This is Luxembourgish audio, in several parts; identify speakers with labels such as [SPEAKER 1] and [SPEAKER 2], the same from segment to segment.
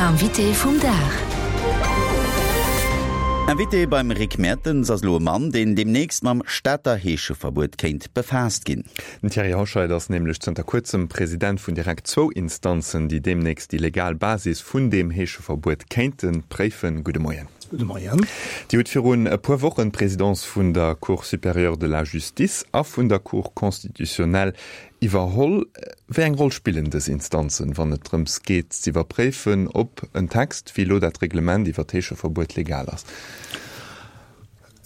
[SPEAKER 1] L'invité vum Dag.
[SPEAKER 2] Invité beim Rick Mertens ass elo e Mann, deen deemnächst mam Stater Heescheverbuet kéint befaasst ginn.
[SPEAKER 3] Den Thierry Hoscheit ass nämlech zënter kuerzem President vun direkt zwou Instanzen, déi deemnächst déi legal Basis vun deem Heescheverbuet kéinte préifen. Gudde Moien.
[SPEAKER 4] Gudde Moien.
[SPEAKER 3] Dir hutt virun e puer Wochen d'Presidence vun der Cour supérieure de la Justice a vun der Cour constitutionnelle Iwwerholl. Wéi eng Roll spillen dës Instanzen, wann et drëms geet z'iwwerpréifen, ob en Text, wéi elo dat Reglement iwwer d'Heescheverbuet, legal ass?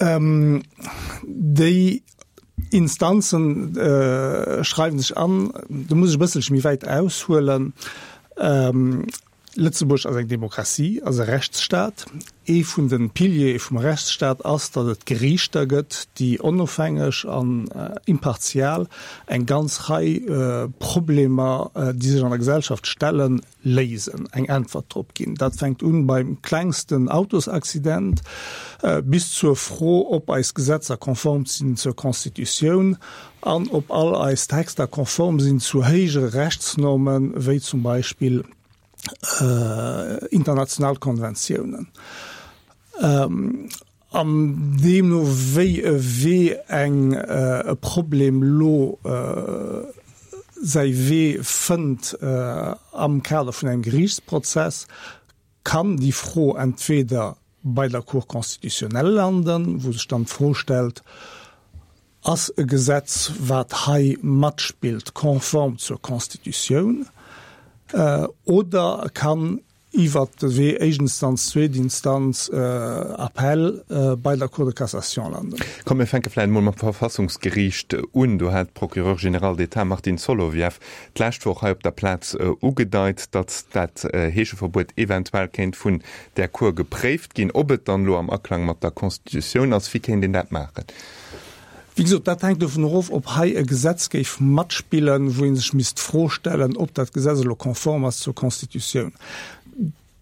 [SPEAKER 4] Déi Instanzen schreiwen sech an, do muss ech e bësselche méi wäit aushuelen, Lëtzebuerg ass eng Demokratie, ass e Rechtsstaat. Ee vun de Piliere vum Rechtsstaat ass, datt et Geriichter gëtt, déi onofhängeg an impartial eng ganz Rei Problemer, déi sech an der Gesellschaft stellen, léisen, eng Äntwert drop ginn. Dat fänkt un beim klengsten Autosaccident bis zur Fro, ob eis Gesetzer konform sinn zur Constitutioun an ob all eis Texter konform sinn zu héijere Rechtsnormen, wéi zum Beispill international Konventiounen. An deemno wéi e Wee eng e Problem lo säi Wee fënnt am Kader vun engem Geriichtsprozess, kann déi Fro entweder bei der Cour constitutionnelle landen, wou sech dann d'Fro stellt, Ass e Gesetz, wat hei matspillt, konform zur Constitutioun oder kann iwwert de Wee éischt Instanz, zweet Instanz, Appell bei der Cour de cassation landen?
[SPEAKER 3] Komm mir fänke vläicht emol mam Verfassungsgeriicht un. Do hat d'Procureure générale d'État Martine Solovieff d'lescht Woch hei op der Plaz ugedeit, datt dat Heescheverbuet eventuell kéint vun där Cour gepréift ginn. Ob et dann elo am Aklang mat der Constitutioun ass, wéi kéint een dat maachen?
[SPEAKER 4] Wéi gesot, dat hänkt dovun erof, ob hei e Gesetz géif matspillen, wou ee sech misst d'Fro stellen, ob dat Gesetz elo konform ass zur Constitutioun.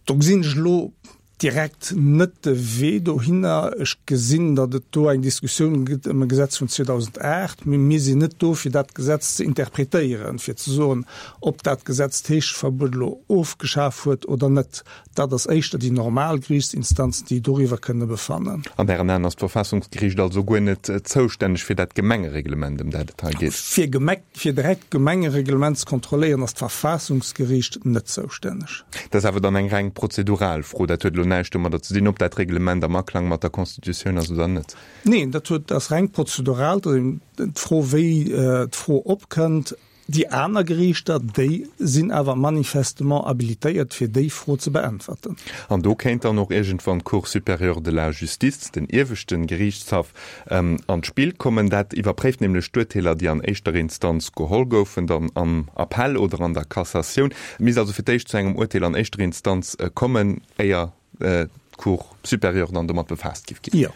[SPEAKER 4] Do gesinn ech elo direkt net de Wee dohinner. Ech gesinn, datt et do eng Diskussioun gëtt ëm e Gesetz vun 2008, mee mir sinn net do, fir dat Gesetz ze interpretéieren, fir ze soen, ob dat Gesetz d'Heescheverbuet elo ofgeschaf huet oder net. Dat ass éischter déi normal Geriichtsinstanzen, déi doriwwer kënne befannen.
[SPEAKER 3] An Ären Aen ass d'Verfassungsgeriicht also guer net zoustänneg fir dat Gemengereglement, ëm dat et hei geet?
[SPEAKER 4] Fir fir direkt d'Gemengereglement ze kontrolléieren, ass d'Verfassungsgeriicht net zoustänneg.
[SPEAKER 3] Dat ass awer dann eng reng prozedural Fro. Dat huet elo näischt domadder ze dinn, ob dat Reglement am Aklang mat der Constitutioun ass oder net.
[SPEAKER 4] Neen, dat huet, ass reng prozedural. Dat ass eben d'Fro, wéi d'Fro opkënnt. Déi aner Geriichter, déi sinn awer manifestement habilitéiert, fir déi Fro ze beäntwerten.
[SPEAKER 3] An do kéint dann och iergendwann d'Cour supérieure de la Justice, den ieweschte Geriichtshaff, an d'Spill kommen. Dat iwwerpréift nämlech d'Urteeler, déi an éischter Instanz geholl goufen, dann am Appell oder an der Cassatioun. Et misst also fir d'éischt zu engem Urteel an éischter Instanz kommen, éier d'Cour supérieure dann domat befaasst géif ginn.
[SPEAKER 4] Jo.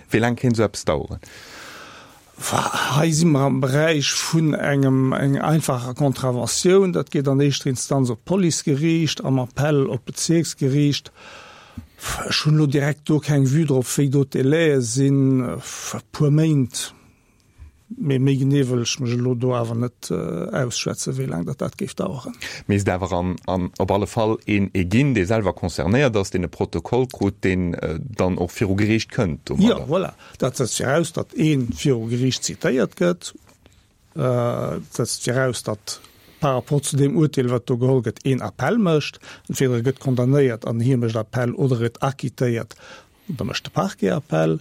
[SPEAKER 3] Wéi laang kéint esou eppes daueren?
[SPEAKER 4] Hei si mer am Beräich vun engem enger einfacher Contraventioun. Dat geet an éischter Instanz op d'Policegeriicht, am Appell op d'Bezierksgeriicht. Ech hunn elo direkt do keng Vue drop, wéi do d'Délaië sinn. E puer Méint. Mee méi genee wëll ech mech elo do awer net ausschwätzen, wéi laang datt dat géif daueren.
[SPEAKER 3] Misst awer an an op alle Fall een ee ginn, dee selwer concernéiert ass, deen e Protokoll krut, deen dann och viru Geriicht kënnt
[SPEAKER 4] domadder. Jo, voilà. Dat setzt viraus, datt ee viru Geriicht zitéiert gëtt. Dat setzt viraus, datt par rapport zu deem Urteel, wat do geholl gëtt, een Appell mécht. Entweder e gëtt condamnéiert an hie mécht Appell oder e gëtt acquittéiert Da mécht de Parquet Appell,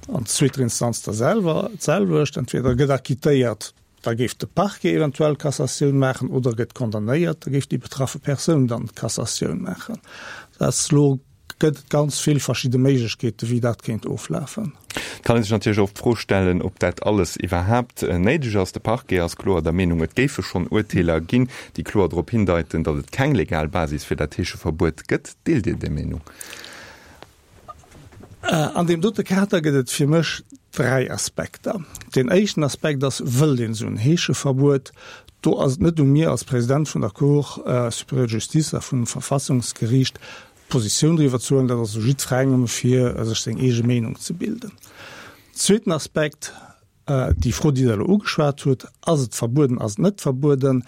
[SPEAKER 4] an zweeter Instanz da selwer d'selwecht. Entweder e gëtt acquittéiert, da géif de Parquet eventuell Cassatioun maachen, oder e gëtt condamnéiert, da géif déi betraffe Persoun dann Cassatioun maachen. Dat ass elo, gëtt et ganz vill verschidde Méiglechkeeten, wéi dat kéint oflafen.
[SPEAKER 3] Et kann ee sech natierlech och d'Fro stellen, ob dat alles iwwerhaapt néideg ass. De Parquet ass kloer der Meenung, et géife schonn Urteeler ginn, déi kloer drop hindeiten, datt et keng legal Basis fir dat Heescheverbuet gëtt. Deelt Dir déi Meenung?
[SPEAKER 4] An deem dote Kader gëtt et fir mech 3 Aspekter. Deen éischten Aspekt ass, Wëllt een esou en Heescheverbuet? Do ass et net u mir als President vun der Cour supérieure de justice a vum Verfassungsgeriicht, Positioun driwwer ze huelen. Dat ass u jiddwerengem, fir sech seng eege Meenung ze bilden. Zweeten Aspekt, déi Fro, déi Der elo ugeschwat hutt, Ass et verbueden, ass et net verbueden?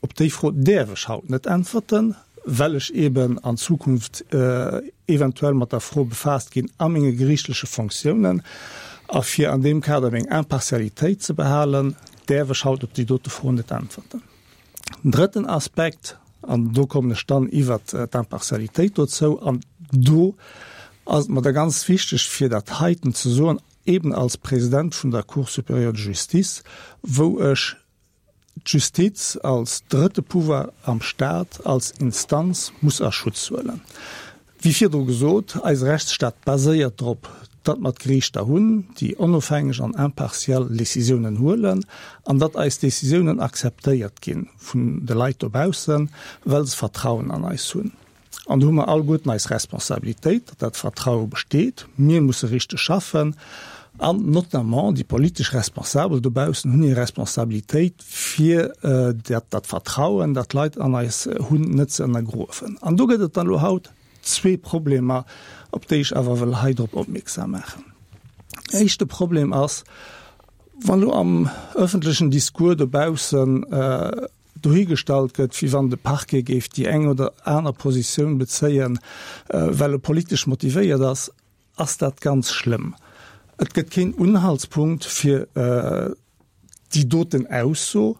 [SPEAKER 4] Op déi Fro däerf ech haut net äntwerten. well ech eeben an Zukunft eventuell mat der Fro befaasst ginn a menge geriichtleche Fonctiounen. A fir an deem Kader meng Impartialitéit ze behalen, däerf ech haut op déi dote Fro net äntwerten. Den drëtten Aspekt, an do kommen ech dann iwwert d'Impartialitéit dozou, an do ass et mer da ganz wichteg, fir dat heiten ze soen, eben als President vun der Cour supérieure de justice, wou ech d'Justiz als drëtte Pouvoir am Stat, als Instanz muss a Schutz huelen. Wéi virdru gesot, eise Rechtsstaat baséiert drop, datt mer d'Geriichter hunn, déi onofhängeg an impartial Décisiounen huelen an datt eis Décisiounen akzeptéiert gi vun de Leit dobaussen, well se Vertrauen an eis hunn. An do hu mer alleguerten eis Responsabilitéit, datt dat Vertraue besteet. Mir musse richteg schaffen an notamment déi politesch Responsabel dobaussen hunn hir Responsabilitéit, fir dat dat Vertrauen, dat d'Leit an eis hunn, net ze ënnergruewen. An do gëtt et dann elo haut zwee Problemer, op déi ech awer wëll hei drop opmierksam maachen. Éischte Problem ass, wann elo am öffentlechen Discours dobaussen dohigestallt gëtt, wéi wann de Parquet géif déi eng oder aner Positioun bezéien, well e politesch motivéiert ass, ass dat ganz schlëmm. Et gëtt keen Unhaltspunkt fir déi doten Ausso.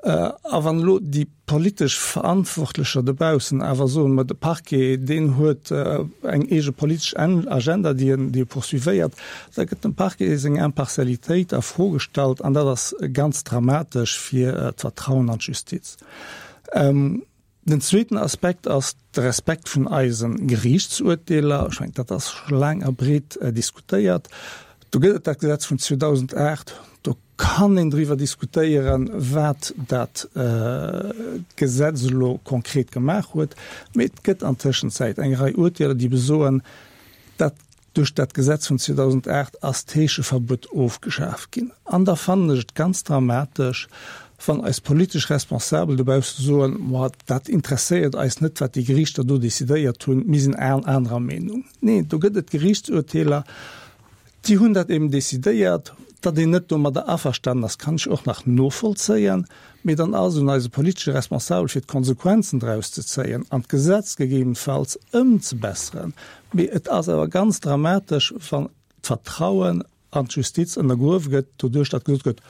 [SPEAKER 4] A wann elo déi politesch Verantwortlecher dobaussen awer soen, ma de Parquet, deen huet eng eege politesch Agenda, déi en, déi e poursuivéiert, Da gëtt dem Parquet seng Impartialitéit a Fro gestallt an dat ass ganz dramatesch fir d'Vertrauen an d'Justiz. Den zweeten Aspekt ass de Respekt vun eise Geriichtsurteeler. Ech mengen, dat ass scho laang a breet diskutéiert. Do gëtt et dat Gesetz vun 2008, do kann een driwwer diskutéieren, wat dat Gesetz elo konkret gemaach huet. Mee et gëtt an Tëschenzäit eng Rei Urteeler, déi besoen, dat Duerch dat Gesetz vun 2008 ass d'Heescheverbuet ofgeschaf ginn. An da fannen ech et ganz dramatesch, wann eis politesch Responsabel dobausse soen, Ma dat interesséiert eis net, wat déi Geriichter do decidéiert hunn, mir sinn anerer Meenung. Neen, do gëtt et Geriichtsurteeler, déi hunn dat eben decidéiert. Datt een net domadder averstanen ass, kann ech och nach novollzéien. Mee dann ass et un eise politesche Responsabel, fir d'Konsequenzen draus ze zéien an d'Gesetz gegebenfalls ëmzebesseren. Mee et ass awer ganz dramatesch, wann d'Vertrauen an d'Justiz ënnergruewe gëtt, doduerch datt gesot gëtt,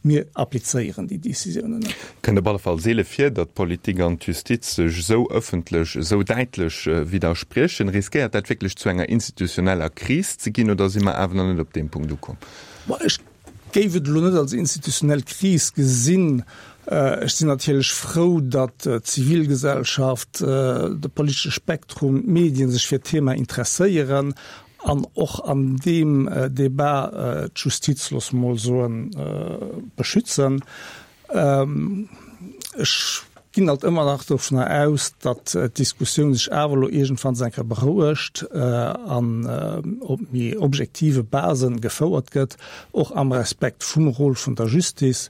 [SPEAKER 4] Mir applizéieren déi Décisiounen net.
[SPEAKER 3] Kënnt op alle Fall seele vir, datt d'Politik an d'Justiz sech esou ëffentlech, esou däitlech widderspriechen. Riskéiert dat wierklech zu enger institutioneller Kris ze ginn oder si mer awer nach net op deem Punkt ukomm?
[SPEAKER 4] Ech géif et elo net als institutionell Kris gesinn. Ech sinn natierlech frou, datt d'Zivilgesellschaft, de politesche Spektrum, d'Medien sech fir d'Thema interesséieren an och an deem Debat d'Justiz, loosse mer mol soen, beschützen. Ech ginn alt ëmmer nach dovunner aus, datt d'Diskussioun sech awer elo iergendwanns eng Kéier berouegt an op méi objektive Base gefouert gëtt, och am Respekt vum Rôle vun der Justice,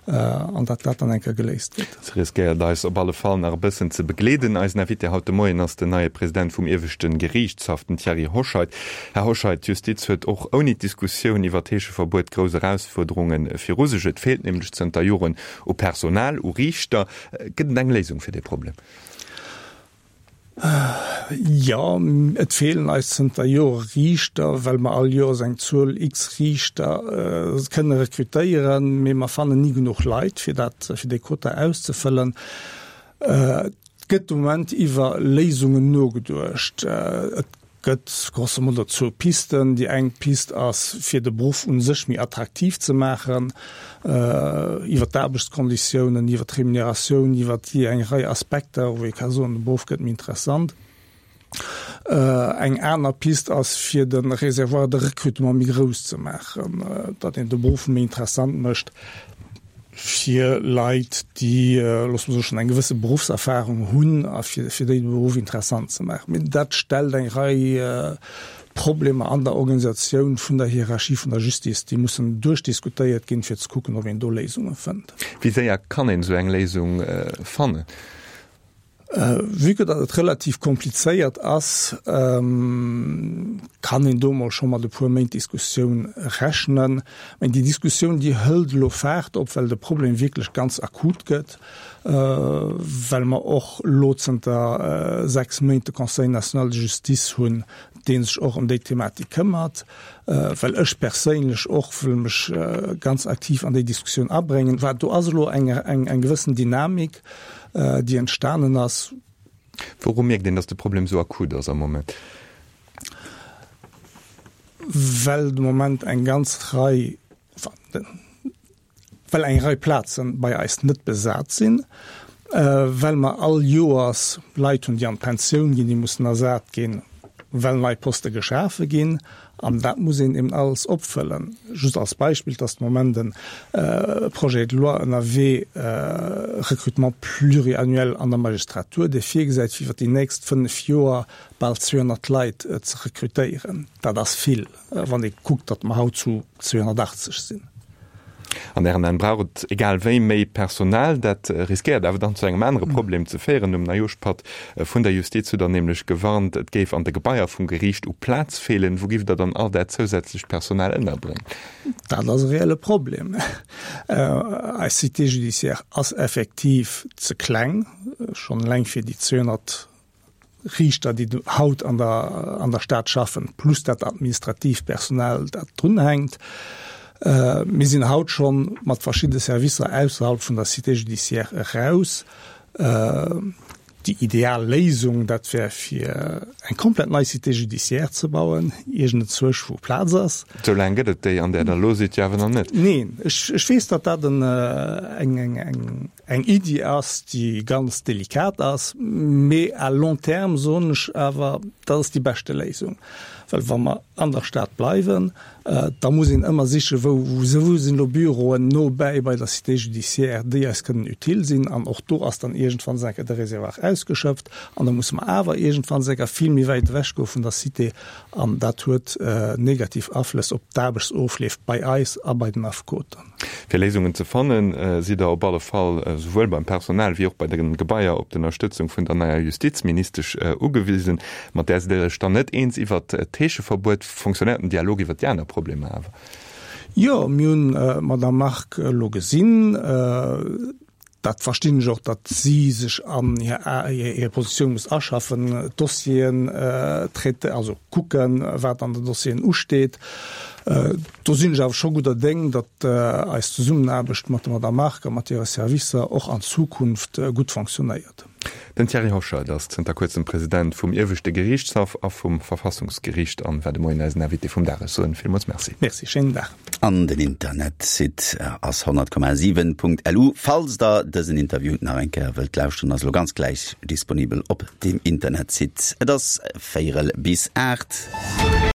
[SPEAKER 4] an datt dat dann eng Kéier geléist gëtt.
[SPEAKER 3] Se riskéiert eis op alle Fall nach e bëssen ze begleeden. Eisen Invité haut de Moien ass den neie President vum ieweschte Geriichtshaff, den Thierry Hoscheit. Här Hoscheit, d'Justiz huet och ouni d'Diskussioun iwwer d'Heescheverbuet grouss Erausfuerderunge viru sech. Et feelt nämlech zënter Joren U Personal, u Riichter. Gëtt et eng Léisung fir dee Problem?
[SPEAKER 4] Jo, et feelen eis zënter Jore Riichter, well mer all Joers eng Zuel x Riichter kënne rekrutéieren, mee mer fannen ni genuch Leit, fir dat, fir déi Quota auszefëllen. Et gëtt de Moment iwwer Léisungen nogeduecht. Et gëtt grosso modo zwou Pisten. Déi eng Pist ass, fir de Beruff u sech méi attraktiv ze maachen, iwwer d'Aarbechtskonditiounen, iwwer d'Remuneratioun, iwwer déi eng Rei Aspekter, wou ee ka soen, de Beruff gëtt méi interessant. Eng aner Pist ass, fir de Réservoir de recrutement méi grouss ze maachen, datt een de Beruff méi interessant mécht fir Leit, déi, loosse mer soen, schonn eng gewësse Beruffserfahrung hunn a fir déi de Beruff interessant ze maachen. Mee dat stellt eng Rei Problemer an der Organisatioun vun der Hierarchie vun der Justice, déi mussen duerchdiskutéiert ginn, fir ze kucken, ob een do Léisunge fënnt.
[SPEAKER 3] Wéi séier kann een esou eng Léisung fannen?
[SPEAKER 4] Vue que datt et relativ komplizéiert ass, kann een do mol scho mat e puer Méint Diskussioun rechnen. Mä déi Diskussioun, déi hëlt elo Faart op, well de Problem wierklech ganz akut gëtt, well mer och elo zënter 6 Méint de Conseil national de justice hunn, dee sech och ëm déi Thematik këmmert, well ech perséinlech och wëll mech ganz aktiv an déi Diskussioun abréngen. Do ass elo eng gewëssen Dynamik. déi entstanen ass.
[SPEAKER 3] Wouru mierkt een, datt de Problem esou akut ass am Moment?
[SPEAKER 4] Well de Moment eng ganz Rei, enfin, well eng Rei Plaze bei eis net besat sinn, well mer all Joers Leit hunn, déi an d'Pensioun ginn, déi mussen ersat ginn, well nei Poste geschafe ginn. An dat muss een eben alles opfëllen. Just als Beispill, et ass de Moment e Projet de loi ënnerwee, Recrutement pluriannuel an der Magistratur, dee virgesäit, fir iwwer déi nächst fënnf Joer bal 200 Leit ze rekrutéieren. Dat ass vill, wann ee kuckt, datt mer haut zu 280 sinn.
[SPEAKER 3] An Ären Aen brauch et egal wéi méi Personal. Dat riskéiert awer dann zu engem anere Problem ze féieren. Um Neijoschpatt vun der Justiz hutt Der nämlech gewarnt, et géif an de Gebaier vum Geriicht u Plaz feelen. Wou giff Der dann all dat zousätzlecht Personal ënnerbréngen?
[SPEAKER 4] Dat ass e reelle Problem. Eis Cité judiciaire ass effektiv ze kleng, schonn eleng fir déi 200 Riichter, déi haut an der, an der Stad schaffen, plus dat administratiivt Personal, dat drunhänkt. Mir sinn haut scho mat verschidde Servicer ausserhalb vun der Cité judiciaire eraus. Déi ideal Léisung, dat wär fir eng komplett nei Cité judiciaire ze bauen, iergendenzwousch wou Plaz ass.
[SPEAKER 3] Sou laang gëtt et déi, an där Der elo sidd, jo awer nach net.
[SPEAKER 4] Neen, ech, ech weess, datt dat en, eng, eng, eng, Eng Iddi ass, déi ganz delikat ass, mee à long terme soen ech awer, dat ass déi beschte Léisung. Well wa mer an der Stad bleiwen, da muss een ëmmer sichen, wou wou sinn elo Büroen no bäi bei der Cité judiciaire, déi eis kënnen utile sinn. An och do ass dann iergendwann enker de Réservoir ausgeschöpft an da musse mer awer iergendwann enker vill méi wäit ewech goe vun der Cité an dat huet negativ Aflëss op d'Aarbechtsofleef bei eis a bei den Affekoten.
[SPEAKER 3] Fir Léisungen ze fannen, sidd Der op alle Fall souwuel beim Personal wéi och bei de Gebaier op d'Ënnerstëtzung vun der neier Justizministesch ugewisen. Mat där sidd Der Iech dann net eens iwwert d'Heescheverbuet. Fonctionnéiert den Dialog iwwert déi aner Problemer awer?
[SPEAKER 4] Jo, mir hunn d'Madame Margue elo gesinn. Dat verstinn ech och, datt si sech an hir Positioun muss aschaffen, d'Dossieren traiter, also kucken, wat an den Dossieren usteet. Do sinn ech awer scho gudder Déng, datt eis Zesummenaarbecht mat der Madame Margue a mat hire Servicer och an Zukunft gutt fonctionnéiert.
[SPEAKER 3] Den Thierry Hoscheit ass zënter kuerzem President vum Ieweschte Geriichtshaff a vum Verfassungsgeriicht an war de Moien eisen Invité vum Dag. Ech soen villmools Merci.
[SPEAKER 4] Merci, schéinen Dag.
[SPEAKER 2] An den Internetsite ass 100,7.lu. Falls der dësen Interview nach eng Kéier wëllt lauschteren, ass elo ganz gläich disponibel op deem Internetsite. Et ass véierel bis 8.